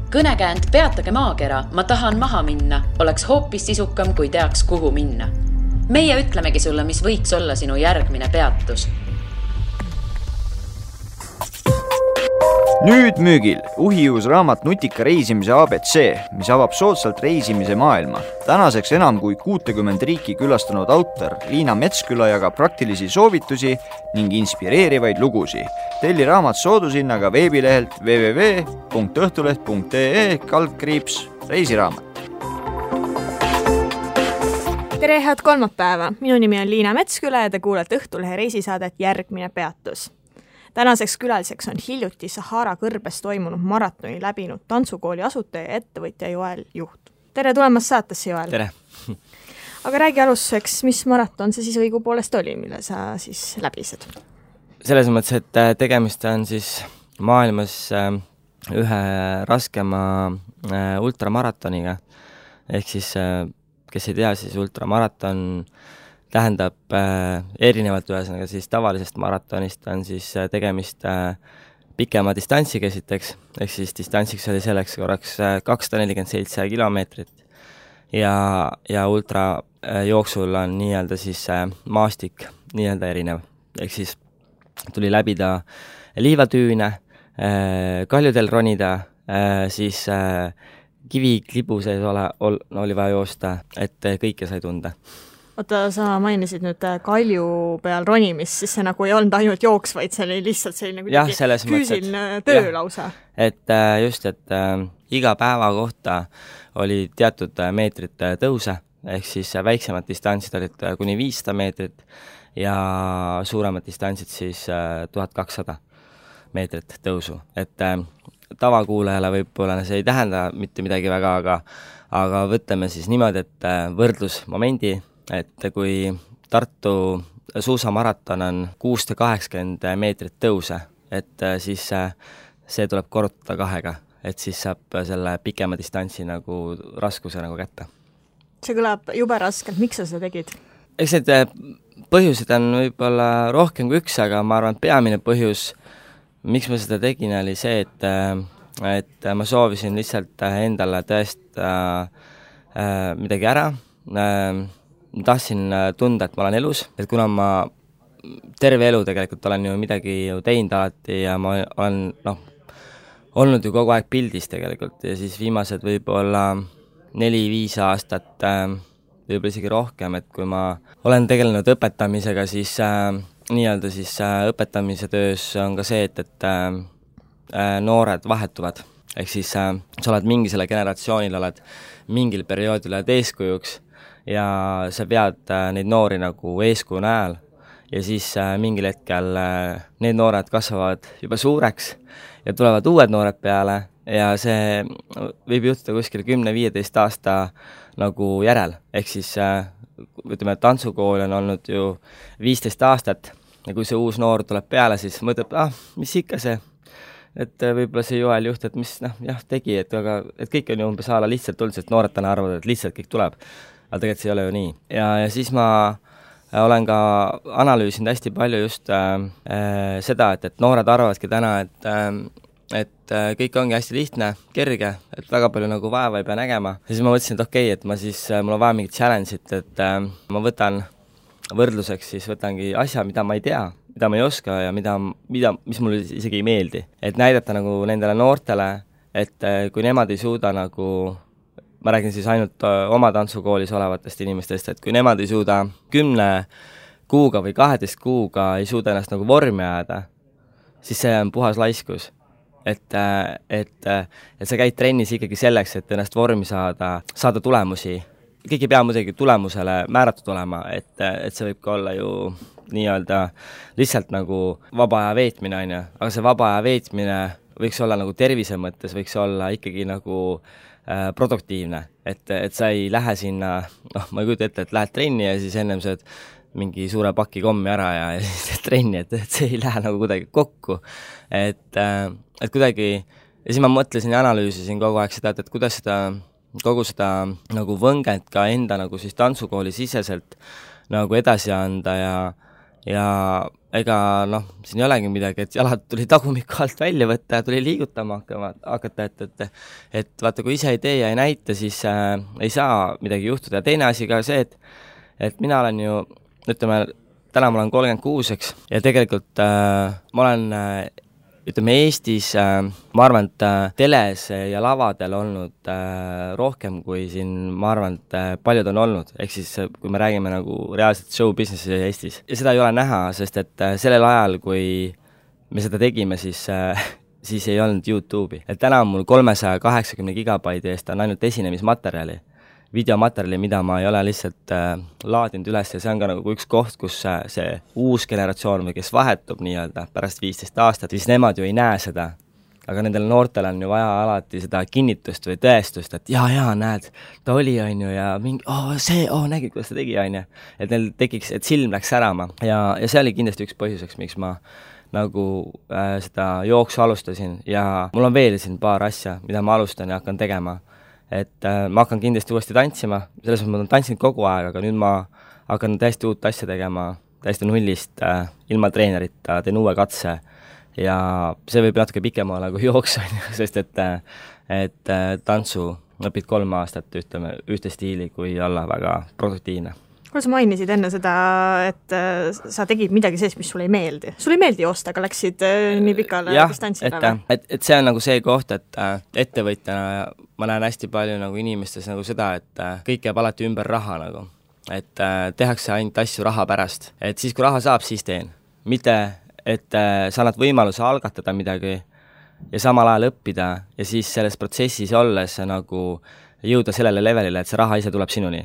Kõnekäänd Peatage maakera, ma tahan maha minna, oleks hoopis sisukam, kui teaks, kuhu minna. Meie ütlemegi sulle, mis võiks olla sinu järgmine peatus. Nüüd müügil uhiuus raamat Nutika reisimise ABC, mis avab soodsalt reisimise maailma. Tänaseks enam kui 60 riiki külastanud autor Liina Metsküla jagab praktilisi soovitusi ning inspireerivaid lugusi. Telli raamat soodushinnaga veebilehelt www.õhtuleht.ee/reisiraamat. Tere, head kolmapäeva! Minu nimi on Liina Metsküla ja te kuulete Õhtulehe reisisaadet Järgmine peatus. Tänaseks külaliseks on hiljuti Sahara kõrbes toimunud maratoni läbinud tantsukooli asutaja ja ettevõtja Joel Juht. Tere tulemast saatesse, Joel! Tere! Aga räägi alustuseks, mis maraton see siis õigupoolest oli, mille sa siis läbised? Selles mõttes, et tegemist on siis maailmas ühe raskema ultramaratoniga. Ehk siis, kes ei tea, siis ultramaraton tähendab erinevalt ühesõnaga siis tavalisest maratonist on siis tegemist pikema distantsiga esiteks, ehk siis distantsiks oli selleks korraks 247 kilomeetrit ja ultra jooksul on nii-öelda siis maastik nii-öelda erinev, ehk siis tuli läbida liivatüüne, kaljudel ronida, siis kiviklibu sees oli vaja joosta, et kõike sai tunda. Oota, sa mainisid nüüd kalju peal ronimist, siis see nagu ei olnud ainult jooks, vaid see oli lihtsalt selline füüsiline töö lausa. Et just, et iga päeva kohta oli teatud meetrit tõuse, ehk siis väiksemad distantsid olid kuni 500 meetrit ja suuremad distantsid siis 1200 meetrit tõusu. Et tavakuulajale võib-olla see ei tähenda mitte midagi väga, aga võtame siis niimoodi, et võrdlusmomendi, et kui Tartu suusamaraton on 680 meetrit tõuse, et siis see tuleb korrutada 2, et siis saab selle pikema distantsi nagu raskuse nagu kätte. See kõlab jube raskelt, miks sa seda tegid? Eks need põhjused on võib-olla rohkem kui üks, aga ma arvan, peamine põhjus, miks ma seda tegin, oli see, et ma soovisin lihtsalt endale tõesta midagi ära. Tahtsin tunda, et ma olen elus, et kuna ma terve elu tegelikult olen ju midagi teinud alati ja ma olen olnud ju kogu aeg pildis tegelikult ja siis viimased võib-olla 4-5 aastat, võib-olla isegi rohkem, et kui ma olen tegelenud õpetamisega, siis nii-öelda siis õpetamise töös on ka see, et noored vahetuvad. Ehk siis sa oled mingisele generatsioonil, oled mingil perioodil oled eeskujuks ja sa pead neid noori nagu eeskuju näel ja siis mingil hetkel need noored kasvavad juba suureks ja tulevad uued noored peale ja see võib juhtuda kuskil 10-15 aasta nagu järel. Ehk siis ütleme, et tantsukool on olnud ju 15 aastat ja kui see uus noor tuleb peale, siis mõtleb, mis ikka see, et võib-olla see Joel Juht, et mis tegi, et kõik on ju umbes ala lihtsalt tulnud, sest noored täna arvavad, et lihtsalt kõik tuleb. Aga tegelikult see ei ole ju nii. Ja siis ma olen ka analüüsinud hästi palju just seda, et noored arvavadki täna, et kõik ongi hästi lihtne, kerge, et väga palju nagu vaeva ei pea nägema. Ja siis ma mõtlesin, et okei, et mul on vaja mingit challenge'it, et ma võtan võrdluseks, siis võtangi asja, mida ma ei tea, mida ma ei oska ja mis mulle isegi ei meeldi. Et näidata nagu nendele noortele, et kui nemad ei suuda nagu, ma räägin siis ainult oma tantsukoolis olevatest inimestest, et kui nemad ei suuda 10 kuuga või 12 kuuga ei suuda ennast nagu vormi ajada, siis see on puhas laiskus. Et sa käid trennis ikkagi selleks, et ennast vormi saada tulemusi. Kõik ei pea muidugi tulemusele määratud olema, et see võib ka olla ju nii-öelda lihtsalt nagu vaba aja veetmine, aga see vaba aja veetmine võiks olla nagu tervise mõttes, võiks olla ikkagi nagu produktiivne, et sa ei lähe sinna, ma ei kujuta ette, et lähed trenni ja siis ennem sööd mingi suure paki kommi ära ja siis teed trenni, et see ei lähe nagu kuidagi kokku, et kuidagi, ja siis ma mõtlesin ja analüüsisin kogu aeg seda, et kuidas kogu seda nagu võngent ka enda nagu siis tantsukooli siseselt nagu edasi anda ja ega siin ei olegi midagi, et jalad tuli tagumiku alt välja võtta ja tuli liigutama hakata, et vaata, kui ise ei tee ja ei näita, siis ei saa midagi juhtuda. Ja teine asi ka see, et mina olen ju, ütleme, täna ma olen 36, eks, ja tegelikult ma olen ütleme Eestis, ma arvan, et teles ja lavadel olnud rohkem kui siin, ma arvan, et paljud on olnud, ehk siis kui me räägime nagu reaalselt show businessi Eestis. Ja seda ei ole näha, sest et sellel ajal, kui me seda tegime, siis ei olnud YouTube'i. Et täna on mul 380 gigabaidi eest on ainult esinemismaterjali, videomaterjali, mida ma ei ole lihtsalt laadinud üles ja see on ka nagu üks koht, kus see uus generatsioon või kes vahetub nii-öelda pärast 15 aastat, siis nemad ju ei näe seda. Aga nendel noortel on ju vaja alati seda kinnitust või tõestust, et jaa, näed, ta oli, on ju, ja mingi, nägid, kuidas ta tegi, on ju. Et neil tekiks, et silm läks särama ja see oli kindlasti üks põhjuseks, miks ma nagu seda jooksu alustasin ja mul on veel siin paar asja, mida ma alustan ja hakkan tegema. Et ma hakkan kindlasti uuesti tantsima, selles mõttes ma olen tantsinud kogu aeg, aga nüüd ma hakkan täiesti uut asja tegema, täiesti nullist, ilma treenerita, teen uue katse ja see võib natuke pikem olla kui jooks, sest et tantsu õpid 3 aastat, ütleme, ühte stiili, kui olla väga produktiivne. Kuule, sa mainisid enne seda, et sa tegid midagi sellist, mis sulle ei meeldi. Sulle ei meeldi joosta, aga läksid nii pikale distantsile? Et see on nagu see koht, et ettevõtjana ma näen hästi palju nagu inimestes nagu seda, et kõik jääb alati ümber raha nagu. Et tehakse ainult asju raha pärast. Et siis, kui raha saab, siis teen. Mitte, et sa annad võimaluse algatada midagi ja samal ajal õppida ja siis selles protsessis olles nagu jõuda sellele levelile, et see raha ise tuleb sinuni.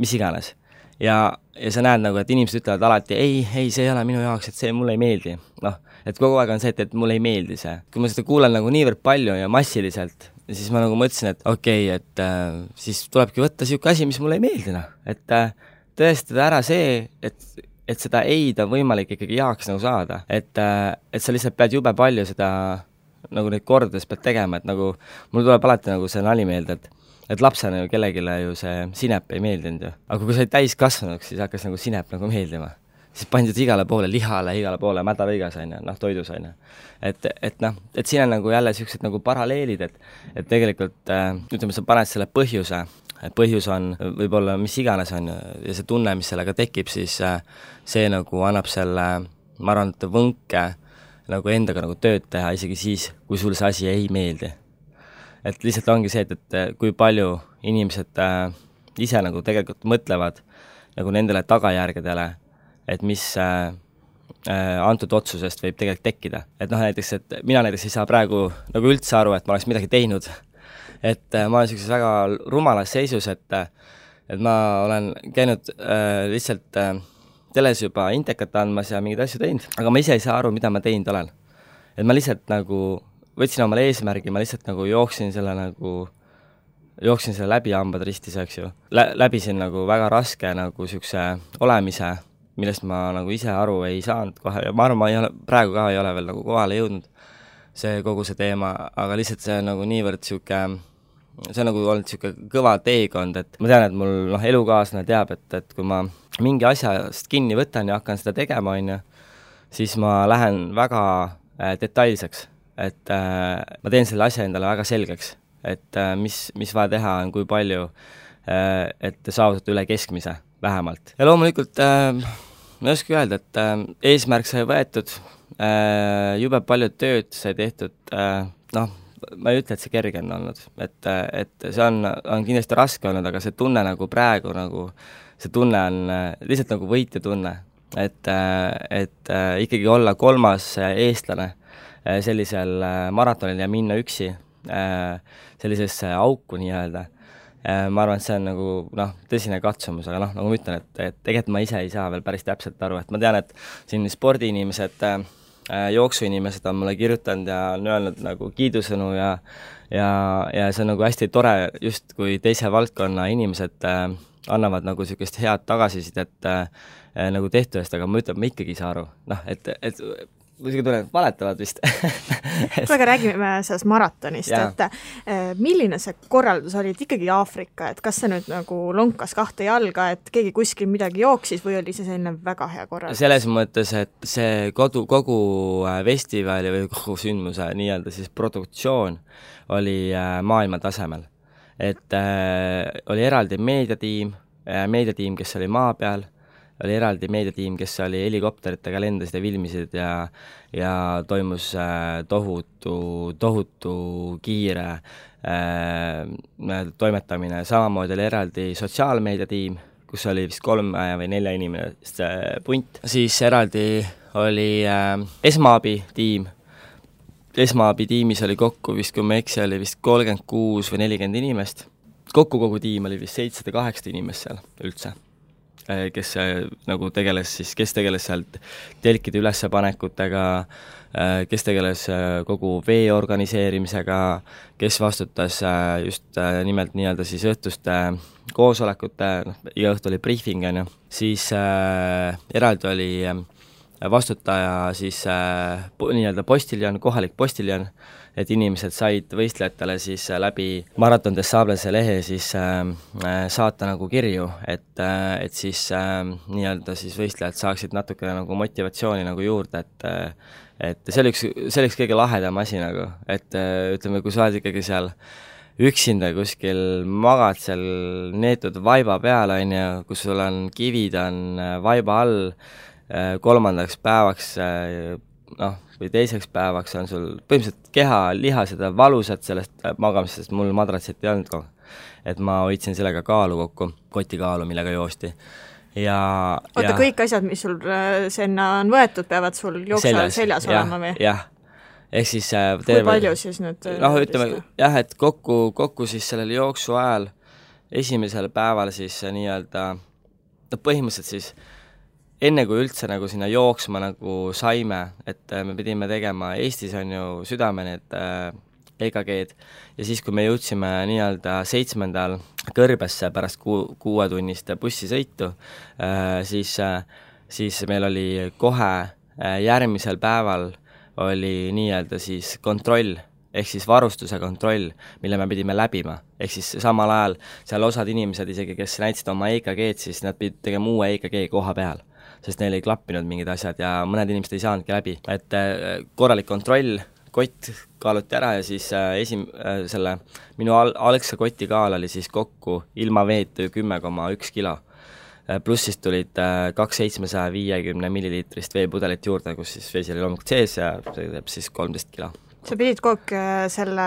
Mis iganes. Ja sa näed nagu, et inimesed ütlevad alati, ei, see ei ole minu jaoks, et see mulle ei meeldi. Et kogu aeg on see, et mulle ei meeldi see. Kui ma seda kuulen nagu niivõrd palju ja massiliselt, siis ma nagu mõtlesin, et okei, et siis tulebki võtta siuke asi, mis mulle ei meeldi. Et tõestada ära see, et seda eid on võimalik ikkagi jaaks nagu saada. Et sa lihtsalt pead jube palju seda nagu neid kordades pead tegema, et nagu mul tuleb alati nagu see nali meelde, et lapsena ju kellegile ju see sinep ei meeldinud ju. Aga kui sa olid täis kasvanuks, siis hakkas nagu sinep nagu meeldima. Siis pandid igale poole lihale, igale poole mädavõigas, toidus. Et siin on nagu jälle sellised nagu paralleelid, et tegelikult, ütleme, sa paned selle põhjuse, et põhjus on võib-olla mis iganes on ja see tunne, mis sellega tekib, siis see nagu annab selle, ma arvan, et võnke nagu endaga nagu tööd teha, isegi siis, kui sul see asi ei meeldi. Et lihtsalt ongi see, et kui palju inimesed ise nagu tegelikult mõtlevad nagu nendele tagajärgedele, et mis antud otsusest võib tegelikult tekkida. Et näiteks, et mina näiteks ei saa praegu nagu üldse aru, et ma oleks midagi teinud. Et ma olen sellises väga rumalas seisus, et ma olen käinud lihtsalt teles juba intekat andmas ja mingid asju teinud, aga ma ise ei saa aru, mida ma teinud olen. Et ma lihtsalt nagu võtsin omale eesmärgi, ma lihtsalt nagu jooksin selle läbi hambad ristis, eks ju. Läbisin nagu väga raske nagu siukse olemise, millest ma nagu ise aru ei saanud kohe ja ma arvan, praegu ka ei ole veel nagu kohale jõudnud kogu see teema, aga lihtsalt see on nagu niivõrd siuke, see on nagu olnud siuke kõva teekond, et ma tean, et mul elukaaslane teab, et kui ma mingi asjast kinni võtan ja hakkan seda tegema, siis ma lähen väga detailseks. Et ma teen selle asja endale väga selgeks, et mis vaja teha on, kui palju, et saavutada üle keskmise vähemalt. Ja loomulikult ma ei oska öelda, et eesmärk sai võetud, jube palju tööd sai tehtud, ma ei ütle, et see kerge on olnud, et see on kindlasti raske olnud, aga see tunne nagu praegu, nagu see tunne on lihtsalt nagu võitja tunne, et ikkagi olla 3. eestlane sellisel maratonil ja minna üksi sellisesse auku nii-öelda. Ma arvan, et see on nagu tõsine katsumus, aga nagu ma ütlen, et tegelikult ma ise ei saa veel päris täpselt aru, et ma tean, et siin spordiinimesed, jooksuinimesed on mulle kirjutanud ja on öelnud nagu kiidusõnu ja see on nagu hästi tore, just kui teise valdkonna inimesed annavad nagu sellisest head tagasisidet nagu tehtu eest, aga ma ütlen, ma ikkagi ei saa aru. Et muidugi tunnen, valetavad vist. aga räägime sellest maratonist, et milline see korraldus oli, et ikkagi Aafrika, et kas see nüüd nagu lonkas 2 jalga, et keegi kuskil midagi jooksis või oli see selline väga hea korraldus? Selles mõttes, et see kogu festivali või kogu sündmuse nii-öelda siis produktsioon oli maailma tasemel. Et oli eraldi meediatiim, kes oli maa peal, oli eraldi meediatiim, kes oli helikopteritega lendasid ja filmisid ja toimus tohutu kiire toimetamine. Samamoodi oli eraldi sotsiaalmeediatiim, kus oli vist 3 või 4 inimest punt. Siis eraldi oli esmaabitiim. Esmaabitiimis oli kokku vist, kui ma eksi, oli vist 36 või 40 inimest. Kokku kogu tiim oli vist 708 inimest seal üldse, kes nagu tegeles sealt telkide ülespanekutega, kes tegeles kogu vee organiseerimisega, kes vastutas just nimelt nii-öelda siis õhtuste koosolekute, iga õhtu oli briefing, siis eraldi oli vastutaja siis nii-öelda postiljon, kohalik postiljon, et inimesed said võistlejatele siis läbi Marathon des Sablese lehe siis saata nagu kirju, et siis nii-öelda siis võistlejad saaksid natukene nagu motivatsiooni nagu juurde, et see oli üks kõige lahedam asi nagu, et ütleme, kui sa oled ikkagi seal üksinda kuskil magad seal neetud vaiba peal, kus sul on kivid on vaiba all, 3. päevaks või 2. päevaks on sul põhimõtteliselt keha lihased ja valusad sellest magamisest, mul madratsit ei olnud kogu. Et ma hoidsin sellega kaalu kokku, kotikaalu, millega joosti. Kõik asjad, mis sul sinna on võetud, peavad sul jooksu seljas olema või? Jah. Ehk siis kui palju siis nüüd? Ütleme, jah, et kokku siis sellel jooksu ajal esimesel päeval siis nii-öelda põhimõtteliselt siis enne kui üldse nagu sinna jooksma nagu saime, et me pidime tegema Eestis on ju südame need EKG-d ja siis, kui me jõudsime nii-öelda 7. kõrbesse pärast 6-tunnist bussisõitu, siis meil oli kohe järgmisel päeval oli nii-öelda siis kontroll, ehk siis varustuse kontroll, mille me pidime läbima. Ehk siis samal ajal seal osad inimesed isegi, kes näitasid oma EKG-d, siis nad pidid tegema uue EKG koha peal, sest neil ei klappinud mingid asjad ja mõned inimesed ei saanudki läbi. Et korralik kontroll, kott kaaluti ära ja siis minu algse koti kaal oli siis kokku ilma veetu 10,1 kilo. Pluss siis tulid 2,750 milliliitrist veepudelit juurde, kus siis vesi oli loomulikult sees ja see teeb siis 13 kilo. Sa pidid kogu selle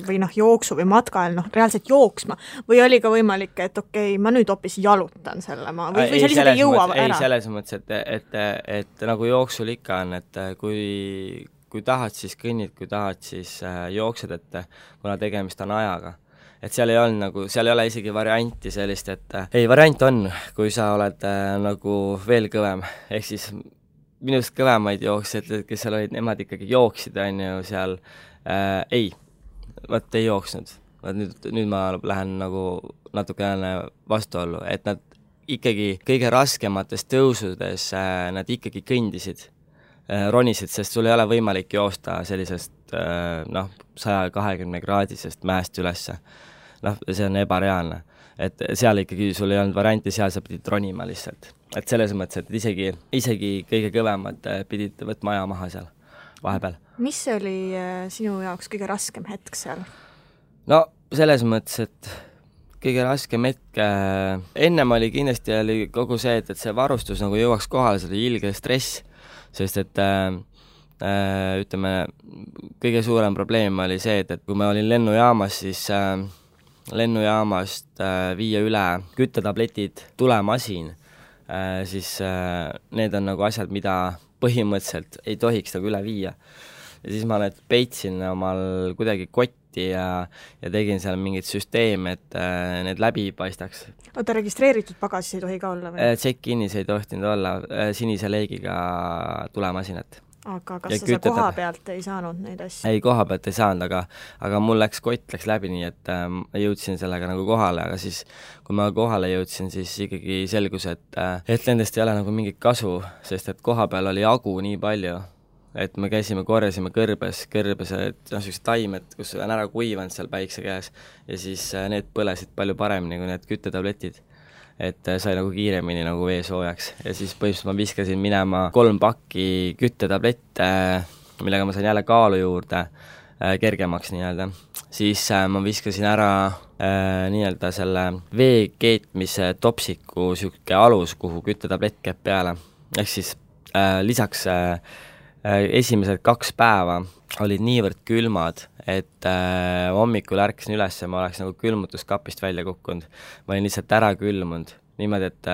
või jooksu või matkal reaalselt jooksma või oli ka võimalik, et okei, ma nüüd hoopis jalutan selle ma või sa lihtsalt ei jõua ära? Ei, selles mõttes, et nagu jooksul ikka on, et kui tahad, siis kõnnid, kui tahad, siis jooksed, et kuna tegemist on ajaga. Et seal ei ole isegi varianti sellist, et ei, variant on, kui sa oled nagu veel kõvem, ehk siis minust kõvemaid jooksjad, kes seal olid, nemad ikkagi jooksid, on ju seal, ei jooksnud. Nüüd ma lähen nagu natukene vastuollu, et nad ikkagi kõige raskemates tõusudes nad ikkagi kõndisid, ronisid, sest sul ei ole võimalik joosta sellisest 120 kraadisest mäest ülesse. See on ebareaalne. Et seal ikkagi sul ei olnud varianti, seal sa pidid ronima lihtsalt. Et selles mõttes, et isegi kõige kõvemad pidid võtma aja maha seal vahepeal. Mis oli sinu jaoks kõige raskem hetk seal? No selles mõttes, et kõige raskem hetk, ennem oli kindlasti kogu see, et see varustus nagu jõuaks kohale, see oli ilge stress, sest et ütleme, kõige suurem probleem oli see, et kui ma olin lennujaamas, siis lennujaamast viia üle küttetabletid, tulemasin, siis need on nagu asjad, mida põhimõtteliselt ei tohiks nagu üle viia. Ja siis ma need peitsin omal kuidagi kotti ja tegin seal mingit süsteemi, et need läbi paistaks. Oota, registreeritud pagasis ei tohi ka olla või? Check-inis ei tohtinud olla sinise leegiga tulemasinat. Aga kas sa koha pealt ei saanud neid asju? Ei, koha pealt ei saanud, aga mul kott läks läbi nii, et jõudsin sellega nagu kohale, aga siis kui ma kohale jõudsin, siis ikkagi selgus, et nendest ei ole nagu mingit kasu, sest et koha peal oli agu nii palju, et me käisime, korjasime kõrbes, sellised taimed, kus on ära kuivanud seal päikse käes ja siis need põlesid palju paremini kui need küttetabletid. Et sai nagu kiiremini nagu vee soojaks ja siis põhimõtteliselt ma viskasin minema 3 pakki küttetablette, millega ma sain jälle kaalu juurde, kergemaks nii-öelda. Siis ma viskasin ära nii-öelda selle vee keetmise topsiku sükke alus, kuhu küttetablett käib peale. Ehk siis lisaks esimesed 2 päeva olid niivõrd külmad, et hommikul ärkasin üles ja ma oleks nagu külmutuskapist välja kukkunud. Ma olin lihtsalt ära külmunud. Niimoodi, et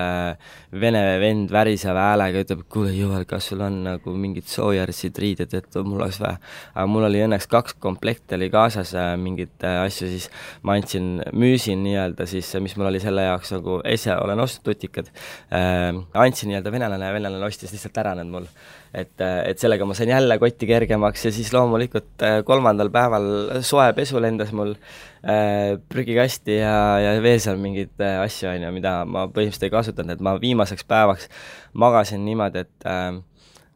vene vend väriseva häälega ütleb, kuule Joel, kas sul on nagu mingid soojarsid riided, et mul oleks vähe. Aga mul oli õnneks 2 komplekti oli kaasas mingid asju, siis ma müüsin nii-öelda siis, mis mul oli selle jaoks nagu olen ostnud tutikad, andsin nii-öelda venelane ja venelane ostis lihtsalt ära need mul. Et sellega ma sain jälle kotti kergemaks ja siis loomulikult 3. päeval soe pesu lendas mul prügikasti ja veel seal mingid asju, mida ma põhimõtteliselt ei kasutanud, et ma viimaseks päevaks magasin niimoodi, et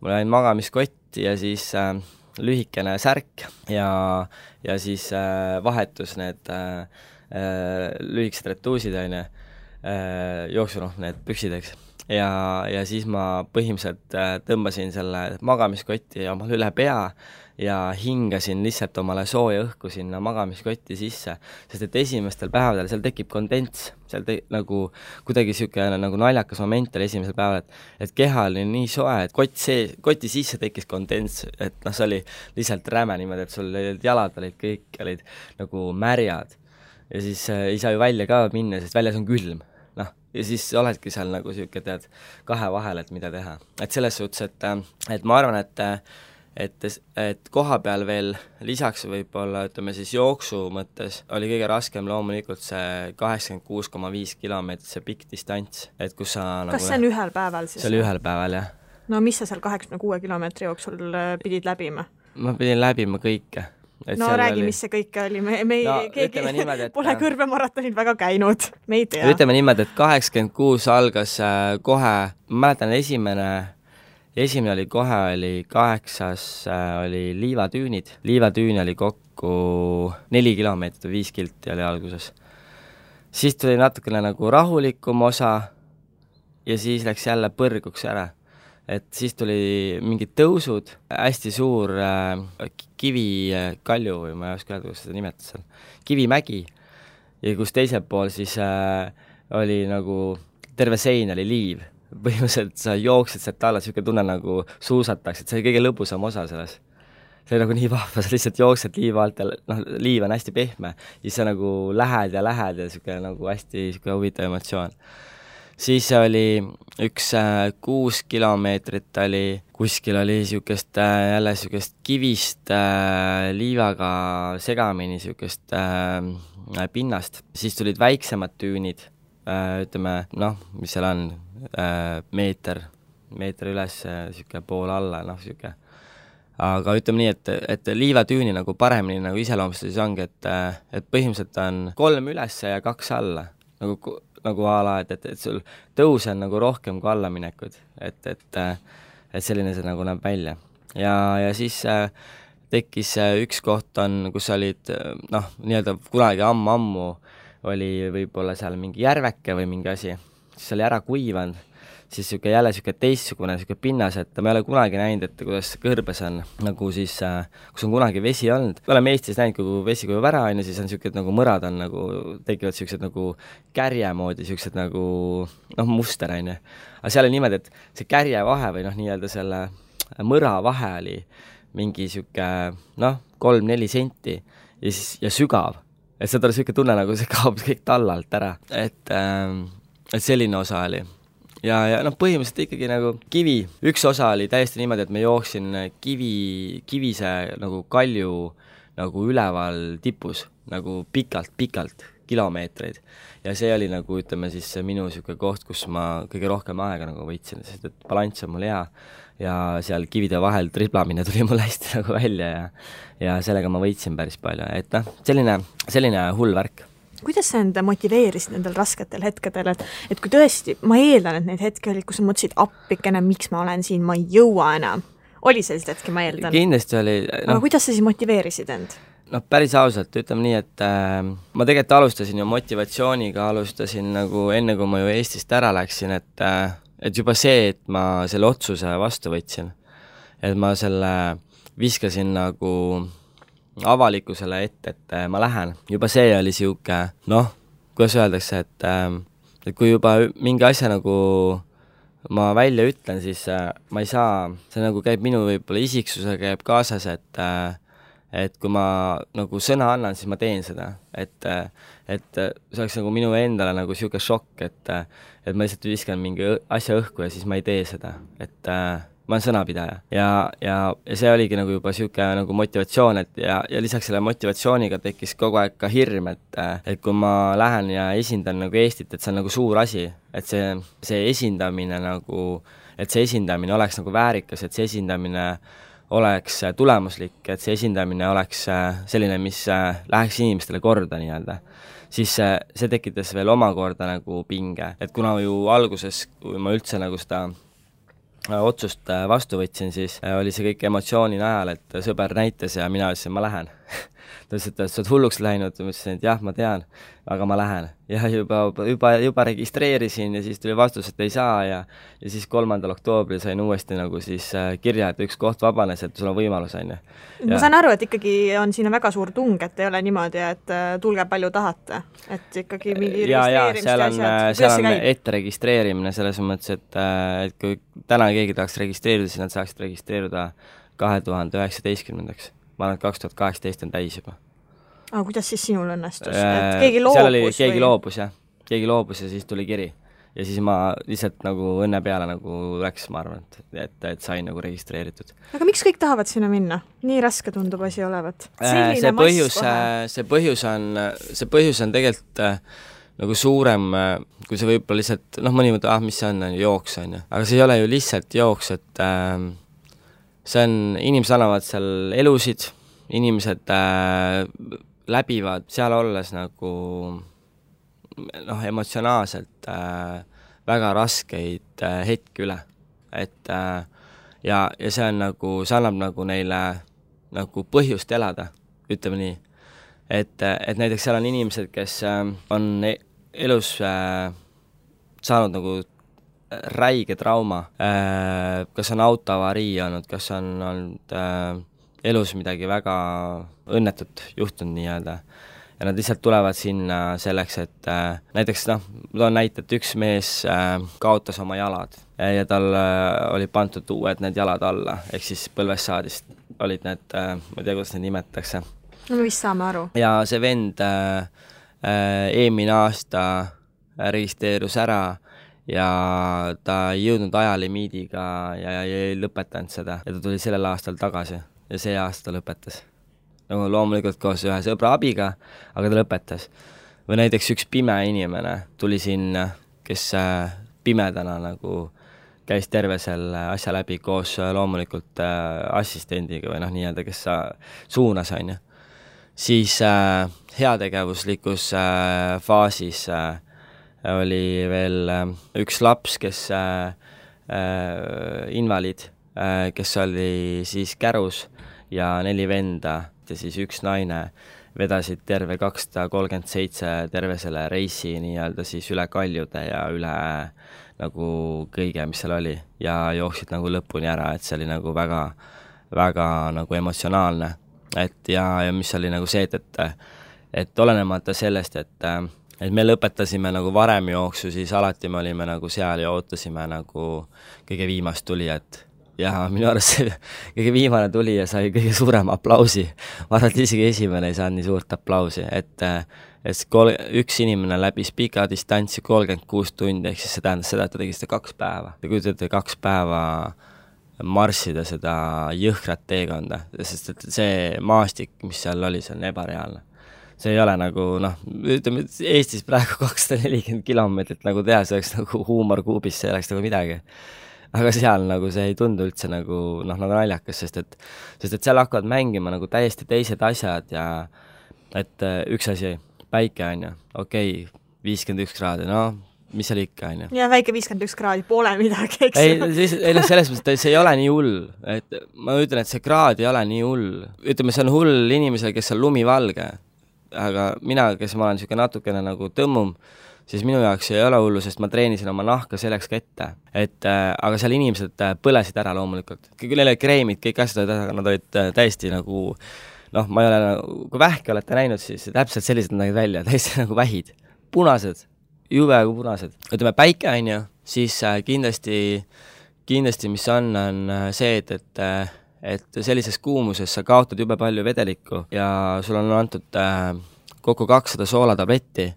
mul oli magamiskott ja siis lühikene särk ja siis vahetus need lühikesed retuusid, jooksu need püksid, eks. Ja siis ma põhimõtteliselt tõmbasin selle magamiskotti omal üle pea ja hingasin lihtsalt omale sooja õhku sinna magamiskotti sisse, sest et esimestel päevadel seal tekib kondents, seal nagu kuidagi niisugune nagu naljakas moment oli esimesel päeval, et keha oli nii soe, et koti sisse tekkis kondents, et see oli lihtsalt räme niimoodi, et sul jalad olid kõik olid nagu märjad ja siis ei saa ju välja ka minna, sest väljas on külm. Ja siis oledki seal nagu siuke, tead, 2 vahel, et mida teha. Et selles suhtes, et ma arvan, et koha peal veel lisaks võib-olla, ütleme siis jooksu mõttes, oli kõige raskem loomulikult see 86,5 kilomeetrit, see pikk distants. Et kus sa kas see on ühel päeval siis? See oli ühel päeval, jah. No mis sa seal 86 kilomeetri jooksul pidid läbima? Ma pidin läbima kõike. No räägi, mis see kõik oli, me keegi niimoodi, pole kõrbemaratonid väga käinud, me ei tea. Ütleme niimoodi, et 86 algas kohe, ma mäletan esimene oli kohe, oli 8, oli liivatüünid. Liivatüüni oli kokku 4 kilomeetrit või 5 kilti oli alguses. Siis tuli natukene nagu rahulikum osa ja siis läks jälle põrguks ära. Et siis tuli mingid tõusud, hästi suur kivikalju või ma ei oska öelda, kuidas seda nimetada seal, kivimägi ja kus teisel pool siis oli nagu terve sein oli liiv. Põhimõtteliselt sa jooksed sealt alla, siuke tunne nagu suusatakse, et see oli kõige lõbusam osa selles. See oli nagu nii vahva, sa lihtsalt jooksed liiva alt ja liiv on hästi pehme, siis sa nagu lähed ja siuke nagu hästi siuke huvitav emotsioon. Siis oli üks 6 kilomeetrit oli, kuskil oli jälle siukest kivist liivaga segamini siukest pinnast. Siis tulid väiksemad tüünid, ütleme, mis seal on, meeter üles, siuke pool alla, siuke. Aga ütleme nii, et liivatüüni nagu paremini nagu iseloomustus ongi, et põhimõtteliselt on 3 üles ja 2 alla, nagu ala, et sul tõus on nagu rohkem kui allaminekud, et selline see nagu näeb välja. Ja siis tekkis üks koht on, kus olid, nii-öelda kunagi ammu oli võib-olla seal mingi järveke või mingi asi, siis oli ära kuivanud, siis jälle teistsugune pinnas, et ma ei ole kunagi näinud, et kuidas kõrbes on nagu siis, kus on kunagi vesi olnud. Me oleme Eestis näinud, kui vesi kujub ära, siis on siukesed nagu mõrad on nagu, tekivad siuksed nagu kärje moodi, siuksed nagu muster, Aga seal oli niimoodi, et see kärje vahe või nii-öelda selle mõra vahe oli mingi siuke 3-4 senti ja sügav. Et seda oli siuke tunne, nagu see kaob kõik tallalt ära. Et selline osa oli. Ja põhimõtteliselt ikkagi nagu kivi. Üks osa oli täiesti niimoodi, et me jooksin kivise nagu kalju nagu üleval tipus, nagu pikalt kilomeetreid. Ja see oli nagu, ütleme siis minu siuke koht, kus ma kõige rohkem aega nagu võitsin, sest et balanss on mul hea ja seal kivide vahel triblamine tuli mul hästi nagu välja ja sellega ma võitsin päris palju. Et selline hull värk. Kuidas sa enda motiveerisid nendel rasketel hetkedel, et kui tõesti, ma eeldan, et neid hetki olid, kus sa mõtlesid appikene, miks ma olen siin, ma ei jõua enam. Oli sellist hetki, ma eeldan? Kindlasti oli. Aga kuidas sa siis motiveerisid end? Päris ausalt, ütleme nii, et ma tegelikult alustasin ju motivatsiooniga, alustasin nagu enne, kui ma ju Eestist ära läksin, et juba see, et ma selle otsuse vastu võtsin, et ma selle viskasin nagu avalikkusele ette, et ma lähen. Juba see oli siuke, kuidas öeldakse, et kui juba mingi asja nagu ma välja ütlen, siis ma ei saa, see nagu käib minu võib-olla isiksusega käib kaasas, et kui ma nagu sõna annan, siis ma teen seda. Et see oleks nagu minu endale nagu siuke šokk, et ma lihtsalt viskan mingi asja õhku ja siis ma ei tee seda. Et ma olen sõnapidaja. Ja see oligi nagu juba siuke nagu motivatsioon, ja lisaks selle motivatsiooniga tekkis kogu aeg ka hirm, et kui ma lähen ja esindan nagu Eestit, et see on nagu suur asi, et see esindamine nagu, et see esindamine oleks nagu väärikas, et see esindamine oleks tulemuslik, et see esindamine oleks selline, mis läheks inimestele korda nii-öelda, siis see tekitas veel omakorda nagu pinge. Et kuna ju alguses, kui ma üldse nagu seda otsust vastu võtsin, siis oli see kõik emotsiooni najal, et sõber näitas ja mina ütlesin, ma lähen. Ta ütles, et sa oled hulluks läinud, ma ütlesin, et jah, ma tean, aga ma lähen. Ja juba registreerisin ja siis tuli vastus, et ei saa ja siis 3. oktoobril sain uuesti nagu siis kirja, et üks koht vabanes, et sul on võimalus, on ju. Ma saan aru, et ikkagi on siin väga suur tung, et ei ole niimoodi, et tulge palju tahate, et ikkagi mingi registreerimist ja asjad. Seal on ette registreerimine selles mõttes, et kui täna keegi tahaks registreerida, siis nad saaksid registreeruda 2019. Ma arvan, et 2018 on täis juba. Aga kuidas siis sinul õnnestus? Et keegi loobus? Keegi loobus ja siis tuli kiri. Ja siis ma lihtsalt nagu õnne peale nagu läks, ma arvan, et sain nagu registreeritud. Aga miks kõik tahavad sinna minna? Nii raske tundub asi olevat. See põhjus on tegelikult nagu suurem, kui see võib-olla lihtsalt, mõni mõte, mis see on, jooks on ju. Aga see ei ole ju lihtsalt jooks, et see on, inimesed annavad seal elusid, inimesed läbivad seal olles nagu emotsionaalselt väga raskeid hetki üle. Et ja see on nagu, see annab nagu neile nagu põhjust elada, ütleme nii. Et näiteks seal on inimesed, kes on elus saanud nagu räige trauma, kas on autoavarii olnud, kas on olnud elus midagi väga õnnetut juhtunud nii-öelda. Ja nad lihtsalt tulevad sinna selleks, et näiteks ma toon näite, et üks mees kaotas oma jalad ja tal oli pandud uued need jalad alla, ehk siis põlvest saadist olid need, ma ei tea, kuidas need nimetatakse. No me vist saame aru. Ja see vend eelmine aasta registreerus ära ja ta ei jõudnud ajalimiidiga ja ei lõpetanud seda ja ta tuli sellel aastal tagasi ja see aasta lõpetas. Nagu loomulikult koos ühe sõbra abiga, aga ta lõpetas. Või näiteks üks pime inimene tuli sinna, kes pimedana nagu käis terve selle asja läbi koos loomulikult assistendiga või nii-öelda, kes suunas on ju. Siis heategevuslikus faasis oli veel üks laps, kes invaliid, kes oli siis kärus ja 4 venda ja siis üks naine vedasid terve 237 terve selle reisi nii-öelda siis üle kaljude ja üle nagu kõige, mis seal oli ja jooksid nagu lõpuni ära, et see oli nagu väga, väga nagu emotsionaalne. Et ja mis oli nagu see, et olenemata sellest, et me lõpetasime nagu varem jooksu, siis alati me olime nagu seal ja ootasime nagu kõige viimast tulijat. Ja minu arust see kõige viimane tuli ja sai kõige suurem aplausi. Ma arvan, et isegi esimene ei saanud nii suurt aplausi, et üks inimene läbis pika distantsi 36 tundi, ehk siis see tähendas seda, et ta tegi seda 2 päeva. Te kujutate 2 päeva marssida seda jõhkrat teekonda, sest et see maastik, mis seal oli, see on ebareaalne. See ei ole nagu, ütleme, Eestis praegu 240 kilomeetrit nagu teha, see oleks nagu huumorkuubis, see oleks nagu midagi. Aga seal nagu see ei tundu üldse nagu, nagu naljakas, sest et seal hakkavad mängima nagu täiesti teised asjad ja et üks asi, päike on ju, okei, 51 kraadi, mis seal ikka, on ju. Ja väike 51 kraadi pole midagi, eks ei, selles mõttes, see ei ole nii hull, et ma ütlen, et see kraad ei ole nii hull. Ütleme, see on hull inimesele, kes on lumivalge, aga mina, kes ma olen niisugune natukene nagu tõmmum, siis minu jaoks ei ole hullu, sest ma treenisin oma nahka selleks ka ette. Aga seal inimesed põlesid ära loomulikult. Küll neil oli kreemid, kõik asjad, aga nad olid täiesti nagu, ma ei ole, kui vähki olete näinud, siis täpselt sellised nägid välja, täiesti nagu vähid. Punased, jube kui punased. Ütleme, päike on ju, siis kindlasti mis on see, et sellises kuumuses sa kaotad jube palju vedelikku ja sul on antud kokku 200 soolatabletti,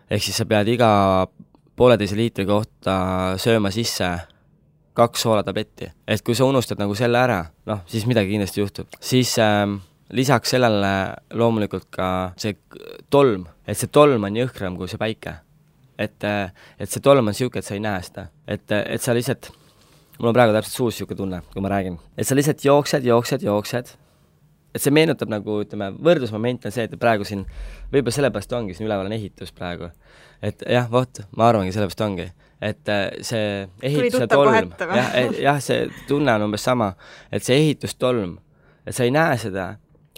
ehk siis sa pead iga 1,5 liitri kohta sööma sisse 2 soolatabletti. Et kui sa unustad nagu selle ära, siis midagi kindlasti juhtub. Siis lisaks sellele loomulikult ka see tolm, et see tolm on jõhkram kui see päike. Et see tolm on siuke, et sa ei näe seda. Et sa lihtsalt, mul on praegu täpselt suus siuke tunne, kui ma räägin. Et sa lihtsalt jooksed. Et see meenutab nagu, ütleme, võrdlusmoment on see, et praegu siin, võib-olla sellepärast ongi, siin üleval on ehitus praegu. Et jah, ma arvangi, sellepärast ongi. Et see ehituse tolm, jah, see tunne on umbes sama, et see ehitustolm, et sa ei näe seda,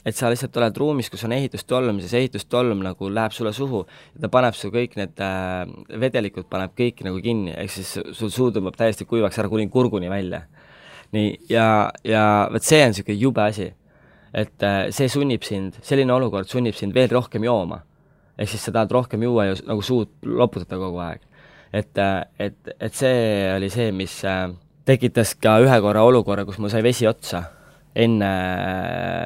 et sa lihtsalt oled ruumis, kus on ehitustolm, siis ehitustolm nagu läheb sulle suhu ja ta paneb su kõik need vedelikud paneb kõik nagu kinni, ehk siis sul suu tõmbab täiesti kuivaks ära kuni kurguni välja. Nii, ja võt see on siuke jube asi, et see sunnib sind, selline olukord sunnib sind veel rohkem jooma, ehk siis sa tahad rohkem juua ja nagu suud loputada kogu aeg. Et see oli see, mis tekitas ka ühe korra olukorra, kus mul sai vesi otsa enne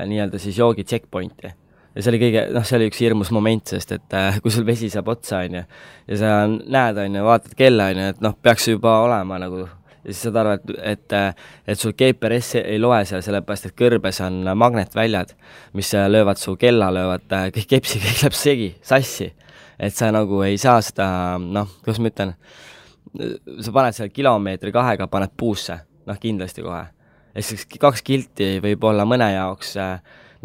nii-öelda siis joogi checkpointi. Ja see oli see oli üks hirmus moment, sest et kui sul vesi saab otsa, on ju, ja sa näed, on ju, vaatad kella, on ju, et peaks juba olema nagu, ja siis saad aru, et sul GPS ei loe seal, sellepärast, et kõrbes on magnetväljad, mis löövad su kella, löövad kõik kepsi, kõik läheb segi, sassi. Et sa nagu ei saa seda, kuidas ma ütlen, sa paned seal kilomeetri 2 paned puusse, kindlasti kohe. Et siis 2 kilti võib olla mõne jaoks,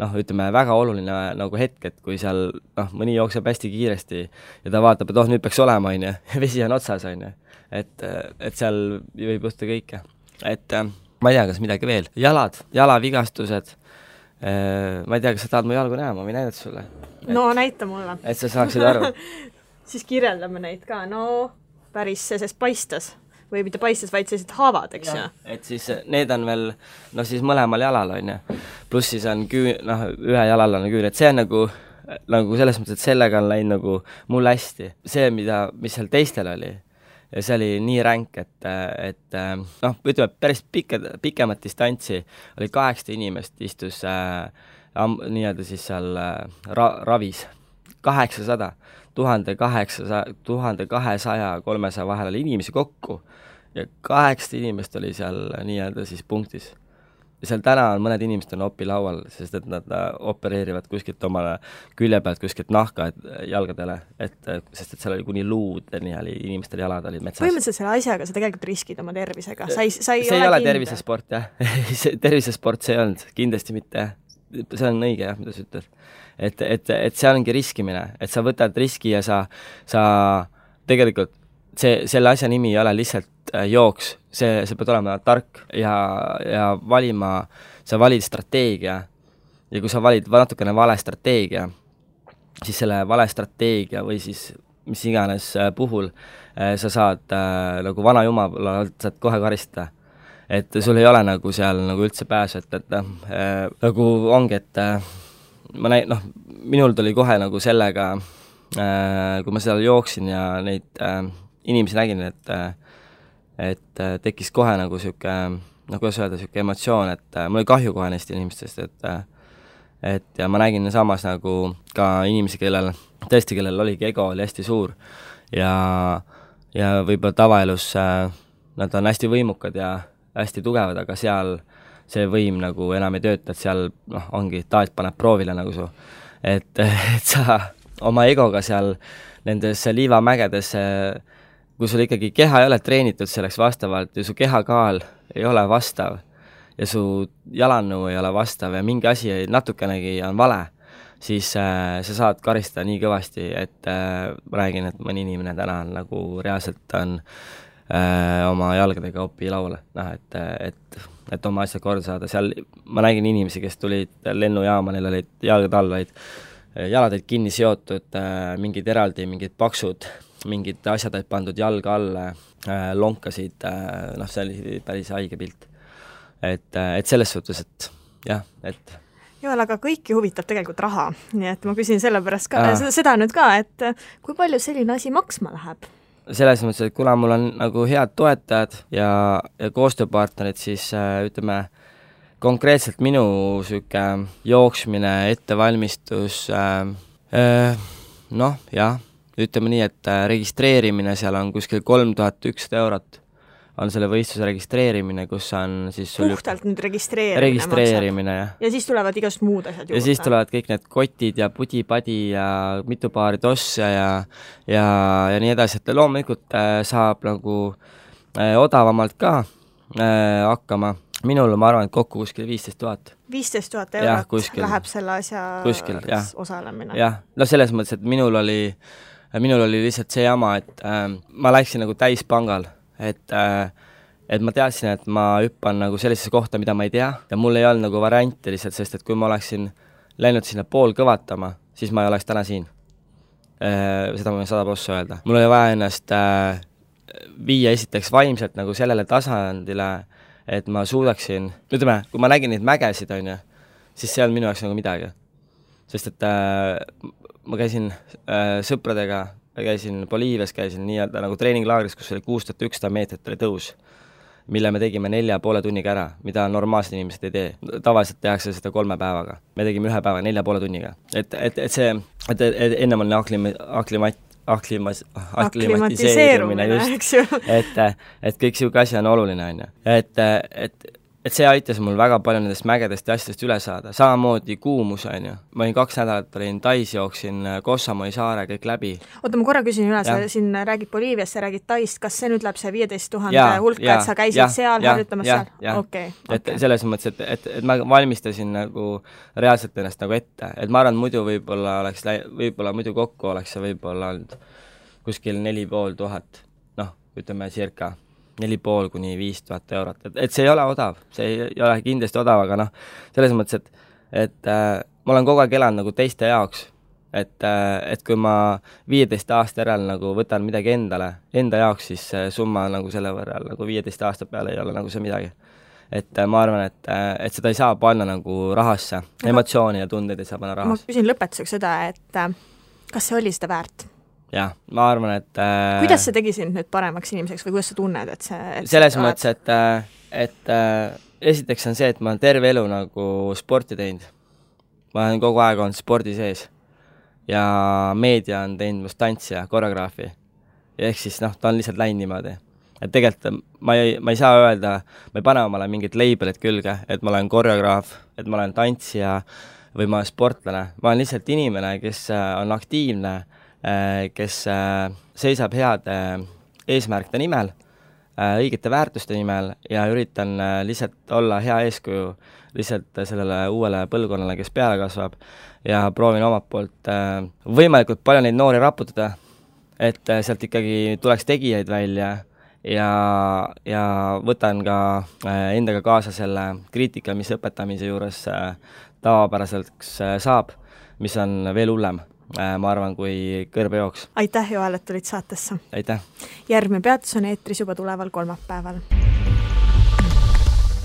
ütleme, väga oluline nagu hetk, et kui seal, mõni jookseb hästi kiiresti ja ta vaatab, et nüüd peaks olema, on ju, vesi on otsas, on ju. Et seal võib juhtuda kõike. Et ma ei tea, kas midagi veel. Jalavigastused. Ma ei tea, kas sa tahad mu jalgu näha, ma võin näidata sulle. No näita mulle. Et sa saaksid aru. Siis kirjeldame neid ka. Päris sest paistas. Või mitte paistas, vaid sellised haavad, eks ju? Et siis need on veel, siis mõlemal jalal, on ju. Pluss siis on ühe jalal on küür. Et see on nagu selles mõttes, et sellega on läinud nagu mul hästi. See, mis seal teistel oli, ja see oli nii ränk, et ütleme, päris pikemat distantsi oli 8 inimest istus nii-öelda siis seal ravis. 800, 1200, 300 vahel oli inimesi kokku ja 8 inimest oli seal nii-öelda siis punktis. Ja seal täna on mõned inimesed on opilaual, sest et nad opereerivad kuskilt omale külje pealt, kuskilt nahka jalgadele, sest et seal oli kuni luudeni oli inimestel jalad olid metsas. Põhimõtteliselt selle asjaga sa tegelikult riskid oma tervisega. See ei ole tervisesport, jah. Tervisesport see ei olnud, kindlasti mitte, jah. See on õige, jah, mida sa ütled. Et see ongi riskimine, et sa võtad riski ja sa tegelikult selle asja nimi ei ole lihtsalt jooks, see peab olema tark ja valima, sa valid strateegia ja kui sa valid natukene vale strateegia, siis selle vale strateegia või siis mis iganes puhul sa saad nagu vana jumala saad kohe karistada. Et sul ei ole nagu seal nagu üldse pääsu, et nagu ongi, et minul tuli kohe nagu sellega, kui ma seal jooksin ja neid inimesi nägin, et tekkis kohe nagu siuke, kuidas öelda, siuke emotsioon, et mul oli kahju kohe neist inimestest, et ja ma nägin samas nagu ka inimesi, kellel oligi ego oli hästi suur ja võib-olla tavaelus nad on hästi võimukad ja hästi tugevad, aga seal see võim nagu enam ei tööta, et seal ongi, taat paneb proovile nagu su. Et sa oma egoga seal nendes liivamägedes, kui sul ikkagi keha ei ole treenitud selleks vastavalt ja su kehakaal ei ole vastav ja su jalannõu ei ole vastav ja mingi asi natukenegi on vale, siis sa saad karistada nii kõvasti, et ma räägin, et mõni inimene täna on nagu reaalselt on oma jalgadega opi lauale, et oma asjad korda saada. Seal ma nägin inimesi, kes tulid lennujaama, neil olid jalgad all, jalad olid kinni seotud, mingid eraldi, mingid paksud, mingid asjad olid pandud jalga alla, lonkasid, see oli päris haige pilt. Et selles suhtes, et jah, et Joel, aga kõiki huvitab tegelikult raha, nii et ma küsin selle pärast ka, seda nüüd ka, et kui palju selline asi maksma läheb? Selles mõttes, et kuna mul on nagu head toetajad ja koostööpartnerid, siis ütleme, konkreetselt minu süke jooksmine, ettevalmistus, ütleme nii, et registreerimine seal on kuskil 3100 eurot on selle võistluse registreerimine, kus on siis puhtalt nüüd registreerimine jah. Ja siis tulevad igast muud asjad juurde. Ja siis tulevad kõik need kotid ja pudi-padi ja mitu paari tosse ja nii edasi, et loomulikult saab nagu odavamalt ka hakkama. Minul ma arvan, et kokku kuskil 15 000. 15 000 eurot läheb selle asja osalemine. Jah, selles mõttes, et minul oli lihtsalt see jama, et ma läksin nagu täispangal. Et ma teadsin, et ma hüppan nagu sellisesse kohta, mida ma ei tea ja mul ei olnud nagu varianti lihtsalt, sest et kui ma oleksin läinud sinna pool kõvatama, siis ma ei oleks täna siin. Seda ma võin 100% öelda. Mul oli vaja ennast viia esiteks vaimselt nagu sellele tasandile, et ma suudaksin, ütleme, kui ma nägin neid mägesid, siis see on minu jaoks nagu midagi. Sest et ma käisin sõpradega, käisin Boliivias, käisin nii-öelda nagu treeninglaagris, kus oli 6100 meetrit oli tõus, mille me tegime 4,5 tunniga ära, mida normaalsed inimesed ei tee. Tavaliselt tehakse seda 3 päevaga. Me tegime 1 päeva 4,5 tunniga. Et ennem on aklimatiseerumine just, et kõik siuke asi on oluline, et see aitas mul väga palju nendest mägedest ja asjadest üle saada. Samamoodi kuumus, Ma olin 2 nädalat, olin Tais, jooksin Kossamoi saare kõik läbi. Oota, ma korra küsin üle, sa siin räägid Boliiviast, sa räägid Taist, kas see nüüd läheb see 15 000 hulka, et sa käisid seal, harjutamas seal? Okay. Et selles mõttes, et ma valmistasin nagu reaalselt ennast nagu ette, et ma arvan, muidu võib-olla muidu kokku oleks see võib-olla olnud kuskil 4500, ütleme circa 4,5 kuni 5000 eurot, et see ei ole odav, see ei ole kindlasti odav, aga selles mõttes, et ma olen kogu aeg elanud nagu teiste jaoks, et kui ma 15 aasta järel nagu võtan midagi enda jaoks, siis summa nagu selle võrral nagu 15 aasta peale ei ole nagu see midagi. Et ma arvan, et seda ei saa panna nagu rahasse, emotsiooni ja tundeid ei saa panna rahasse. Ma küsin lõpetuseks seda, et kas see oli seda väärt? Jah, ma arvan, et kuidas see tegi sind nüüd paremaks inimeseks või kuidas sa tunned, et see selles mõttes, et esiteks on see, et ma olen terve elu nagu sporti teinud. Ma olen kogu aeg olnud spordi sees ja meedia on teinud must tantsi ja koreograafi. Ehk siis ta on lihtsalt läinud niimoodi. Et tegelikult ma ei saa öelda, ma ei pane omale mingit labelit külge, et ma olen koreograaf, et ma olen tantsija või ma olen sportlane. Ma olen lihtsalt inimene, kes on aktiivne, kes seisab heade eesmärkide nimel, õigete väärtuste nimel ja üritan lihtsalt olla hea eeskuju lihtsalt sellele uuele põlvkonnale, kes peale kasvab ja proovin omalt poolt võimalikult palju neid noori raputada, et sealt ikkagi tuleks tegijaid välja ja võtan ka endaga kaasa selle kriitika, mis õpetamise juures tavapäraselt saab, mis on veel hullem. Ma arvan, kui kõrbejooks. Aitäh, Joel, et tulid saatesse. Aitäh. Järgmine peatus on eetris juba tuleval kolmapäeval.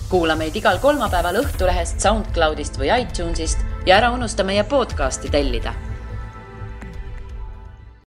Kuula meid igal kolmapäeval Õhtulehest, SoundCloudist või iTunesist ja ära unusta meie podcasti tellida.